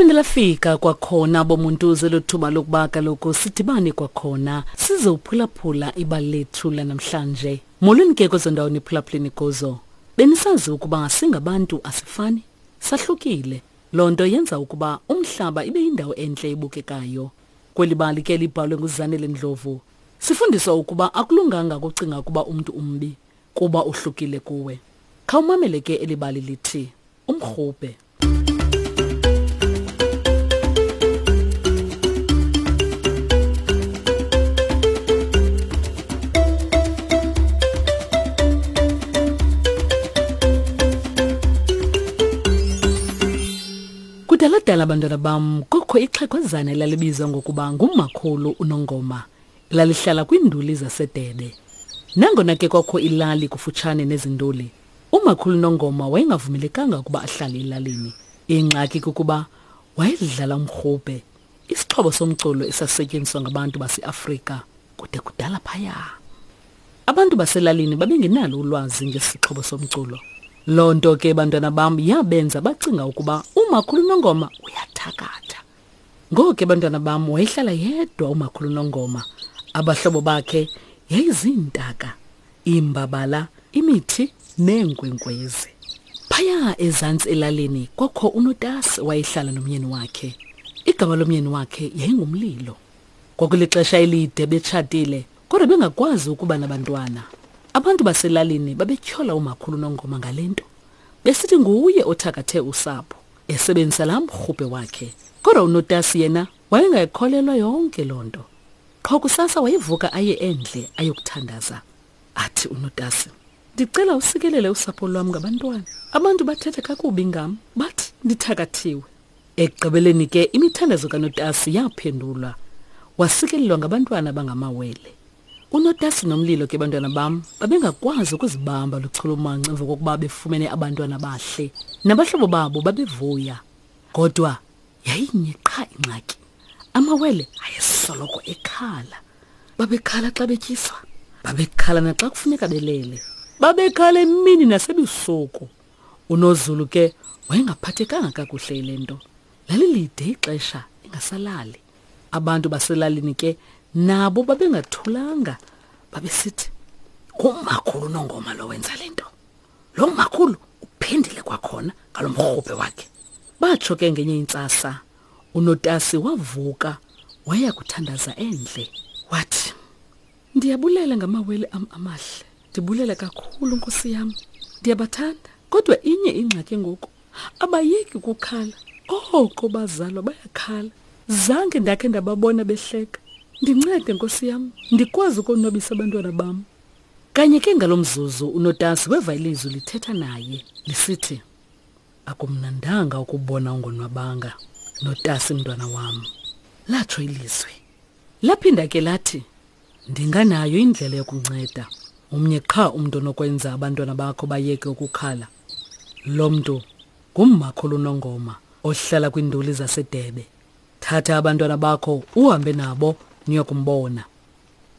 Laphinde lafika kwakhona bomuntu zelothuba lokuba kaloku sidibane kwakhona size uphulaphula ibali lethu lanamhlanje. Molweni ke kwezo ndawo niphulaphuleni kuzo. Benisazi ukuba singabantu asifani, sahlukile. Loo nto yenza ukuba umhlaba ibe yindawo entle ebukekayo. Kweli bali ke libhalwe nguZanele Ndlovu, sifundiswa ukuba akulunganga ukucinga ukuba umntu umbi kuba uhlukile kuwe. Khawumamele ke eli bali lithi Umrhubhe. Kudala-dala bantwana bam kukho ixhegwazana elalibizwa ngokuba ngumakhulu uNongoma lalihlala kwiinduli zaseDebe. Nangona ke kwakho ilali kufutshane nezi nduli, umakhulu Nongoma wayengavumelekanga ukuba ahlale elalini. Ingxaki kukuba wayedlala umrhubhe, isixhobo somculo esasisetyenziswa ngabantu baseAfrika kude kudala phaya. Abantu baselalini babengenalo ulwazi ngesixhobo somculo. Loo nto ke bantwana bam yabenza bacinga ukuba umakhulu Nongoma uyathakatha. Ngoko ke bantwana bam wayehlala yedwa umakhulu Nongoma. Abahlobo bakhe yayiziintaka, iimbabala, imithi neenkwenkwezi. Phaya ezantsi elalini kwakho uNotasi wayehlala nomyeni wakhe. Igama lomyeni wakhe yayingumlilo. Kwakulixesha elide betshatile kodwa bengakwazi ukuba nabantwana. Abantu baselalini babetyhola umakhulu Nongoma ngale nto, besithi nguye othakathe usapho esebenzisa laa mrhubhe wakhe. Kodwa uNotasi yena wayengayikholelwa yonke loo nto. Qho kusasa wayevuka aye endle ayokuthandaza. Athi uNotasi, ndicela usikelele usapho lwam ngabantwana. Abantu bathetha kakubi ngam, bathi ndithakathiwe. Ekugqibeleni ke imithandazo kaNotasi yaphendulwa. Wasikelelwa ngabantwana abangamawele. UNotasi noMlilo ke bantwana bam babengakwazi ukuzibamba luchulumanco emva kokuba befumene abantwana abahle. Nabahlobo babo babevuya. Kodwa yayinye qha ingxaki. Amawele ayesoloko ekhala. Babekhala xa betyiswa. Babekhala naxa kufuneka belele. Babekhala emini nasebusuku. UNozulu ke wayengaphathekanga kakuhle yile nto. Lalilide ixesha engasalali. Abantu baselalini ke nabo babengathulanga, babesithi ngumakhulu uNongoma lo wenza le nto. Lo makhulu uphindile kwakhona ngalo mrhubhe wakhe. Batsho ke ngenye intsasa uNotasi wavuka waya kuthandaza endle. Wathi, Ndiyabulela ngamawele am amahle. Ndibulela kakhulu Nkosi yam. Ndiyabathanda. Kodwa inye ingxaki ngoku. Abayeki ukukhala. Oko bazalwa bayakhala. Zange ndakhe ndababona behleka. Ndincede Nkosi yam, ndikwazi ukonwabisa abantwana bam. Kanye ke ngalo mzuzu uNotasi weva ilizwi lithetha naye lisithi, Akumnandanga ukubona ungonwabanga, Notasi mntwana wam. Latsho ilizwi. Laphinda ke lathi, Ndinganayo indlela yokunceda. Umnye qha umntu onokwenza abantwana bakho bayeke ukukhala. Lo mntu ngummakhulu uNongoma ohlala kwiinduli zaseDebe. Thatha abantwana bakho uhambe nabo niyokumbona.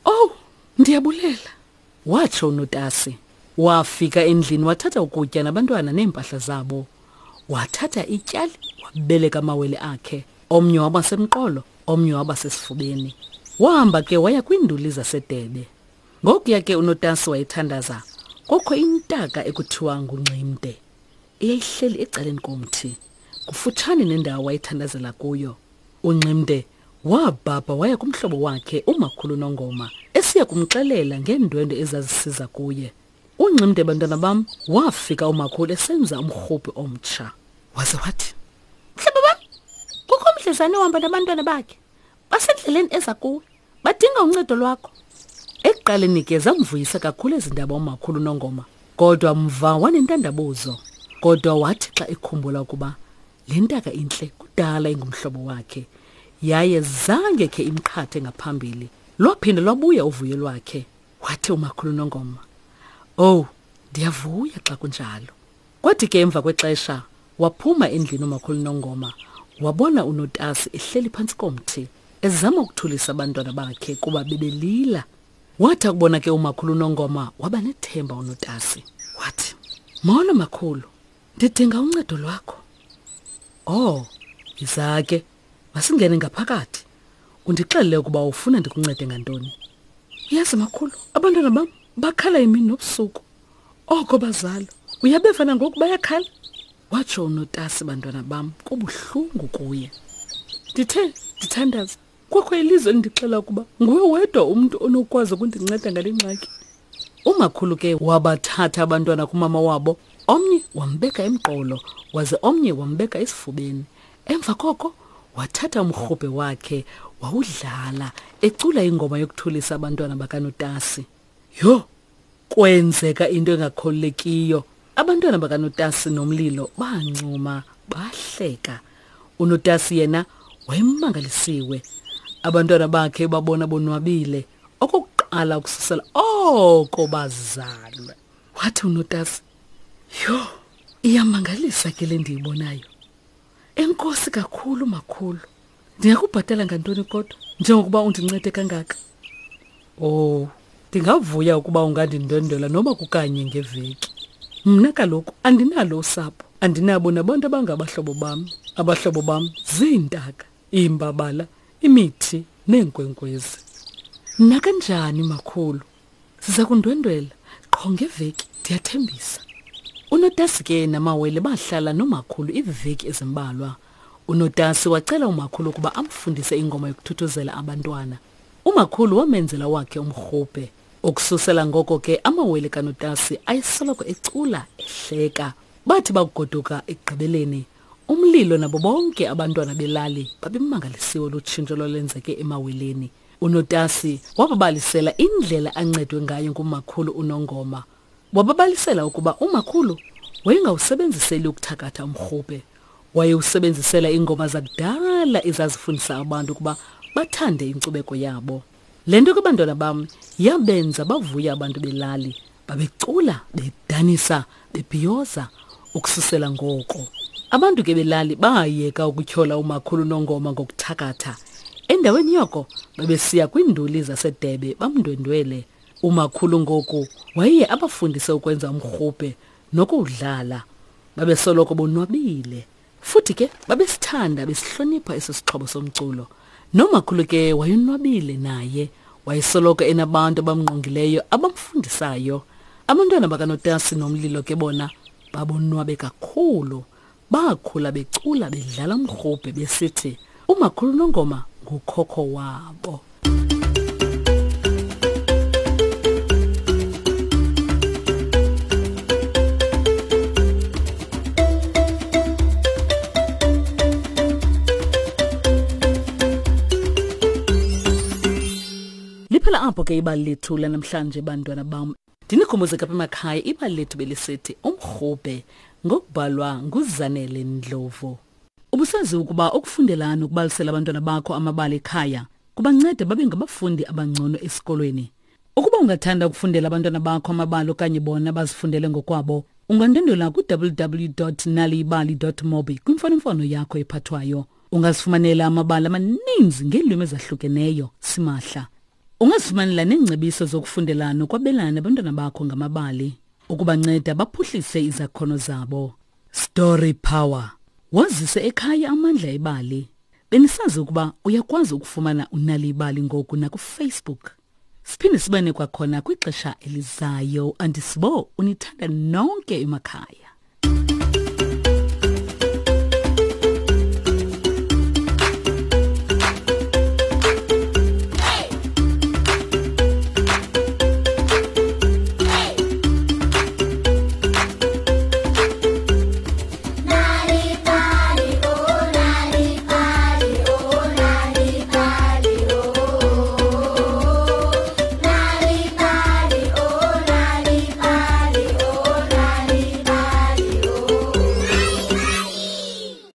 Owu, ndiyabulela, watsho uNotasi. Wafika endlini wathatha ukutya nabantwana neempahla zabo. Wathatha ityali wabeleka amawele akhe. Omnye waba semqolo, omnye waba sesifubeni. Wahamba ke waya kwiinduli zaseDebe. Ngokuya ke uNotasi wayethandaza, kwakho intaka ekuthiwa nguNximde eyayihleli ecaleni komthi kufutshane nendawo wayethandazela kuyo. UNximde wabhabha waya kumhlobo wakhe uMakhulu Nongoma esiya kumxelela ngeendwendwe ezazisiza kuye. UNximde bantwana bam wafika umakhulu esenza umrhubhi omtsha. Waze wathi, Mhlobo wam, kukho umdlezane ohamba nabantwana bakhe. Basendleleni eza kuwe. Badinga uncedo lwakho. Ekuqaleni ke zamvuyisa kakhulu ezi ndaba umakhulu Nongoma, kodwa mva wanentandabuzo. Kodwa wathi xa ekhumbula ukuba le ntaka intle kudala ingumhlobo wakhe, yaye zange khe imqhathe ngaphambili, lwaphinda lwabuya uvuyo lwakhe. Wathi umakhulu Nongoma, Owu, ndiyavuya xa kunjalo. Kwathi ke emva kwexesha waphuma endlini umakhulu Nongoma wabona uNotasi ehleli phantsi komthi ezama ukuthulisa abantwana bakhe kuba bebelila. Wathi akubona ke umakhulu Nongoma waba nethemba uNotasi. Wathi, Molo makhulu, ndidinga uncedo lwakho. Oh, Yiza ke, masingene ngaphakathi. Undixelele ukuba ufuna ndikuncede ngantoni. Uyazi makhulu, abantwana bam bakhala imini nobusuku. Oko bazalwa. Uyabeva nangoku bayakhala? Watsho unotasi bantwana bam kubuhlungu kuye. Ndithe ndithandaza kwakho ilizwe elindixela ukuba nguwe wedwa umntu onokwazi ukundinceda ngale ngxaki. Umakhulu ke wabathatha abantwana kumama wabo, omnye wambeka emqolo waze omnye wambeka esifubeni. Emva koko wathatha umrhubhe wakhe wawudlala ecula ingoma yokuthulisa abantwana bakanotasi. Yho, kwenzeka into engakholekiyo. Abantwana bakanotasi nomlilo bancuma bahleka. Unotasi yena wayemangalisiwe. Abantwana bakhe babona bonwabile okokuqala ukususela oko bazalwe. Wathi unotasi, yho, iyamangalisa ke le ndiyibonayo. Enkosi kakhulu makhulu. Ndingakubhatala ngantoni kodwa njengokuba undincede kangaka? Oh, ndingavuya ukuba ungandindwendwela noba kukanye ngeveki. Mna kaloku andinalo usapho, andinabo nabantu abangabahlobo bam. Abahlobo bam ziintaka, iimbabala, imithi neenkwenkwezi. Nakanjani makhulu? Siza kundwendwela qho ngeveki, ndiyathembisa. Unotasi ke namawele bahlala nomakhulu iiveki ezimbalwa. Unotasi wacela umakhulu ukuba amfundise ingoma yokuthuthuzela abantwana. Umakhulu wamenzela wakhe umrhubhe. Ukususela ngoko ke amawele kaNotasi ayesoloko ecula ehleka. Bathi bakugoduka ekugqibeleni, umlilo nabo bonke abantwana belali babemangalisiwe lutshintsho lwalwenzeke emaweleni. Unotasi wababalisela indlela ancedwe ngayo ngumakhulu uNongoma. Wababalisela ukuba umakhulu wayengawusebenziseli ukuthakatha umrhubhe. Wayewusebenzisela iingoma zakudala ezazifundisa abantu ukuba bathande inkcubeko yabo. Le nto ke bantwana bam yabenza bavuya abantu belali. Babecula, bedanisa, bebhiyoza ukususela ngoko. Abantu ke belali bayeka ukutyhola umakhulu Nongoma ngokuthakatha. Endaweni yoko babesiya kwiinduli zaseDebe bamndwendwele. Umakhulu ngoku wayeye abafundise ukwenza umrhubhe nokuwudlala. Babesoloko bonwabile. Futhi ke babesithanda besihlonipha eso sixhobo somculo. Nomakhulu ke wayonwabile naye. Wayesoloko enabantu abamngqongileyo abamfundisayo. Abantwana bakaNotasi nomlilo ke bona babonwabe kakhulu. Bakhula becula bedlala umrhubhe besithi umakhulu Nongoma ngukhokho wabo. Liphela apho ke ibali lethu lanamhlanje bantwana bam. Ndinikhumbuze kapha emakhaya ibali lethu belisithi umrhubhe ngokubhalwa nguZanele Ndlovu. Ubusazi ukuba ukufundela nokubalisela abantwana bakho amabali ekhaya kubanceda babe ngabafundi abangcono esikolweni. Ukuba ungathanda ukufundela abantwana bakho amabali okanye bona bazifundele ngokwabo, ungandwendwela ku-www.naliyibali.mobi kwimfonomfono yakho ephathwayo. Ungazifumanela amabali amaninzi ngeelwimi ezahlukeneyo simahla. Ungazifumanela neengcebiso zokufundela nokwabelana nabantwana bakho ngamabali ukubanceda baphuhlise izakhono zabo. Story Power. Wazise ekhaya amandla ebali. Benisazi ukuba uyakwazi ukufumana unali ibali ngoku nakuFacebook. Siphinde sibane kwakhona kwixesha elizayo. Andisibo unithanda nonke emakhaya.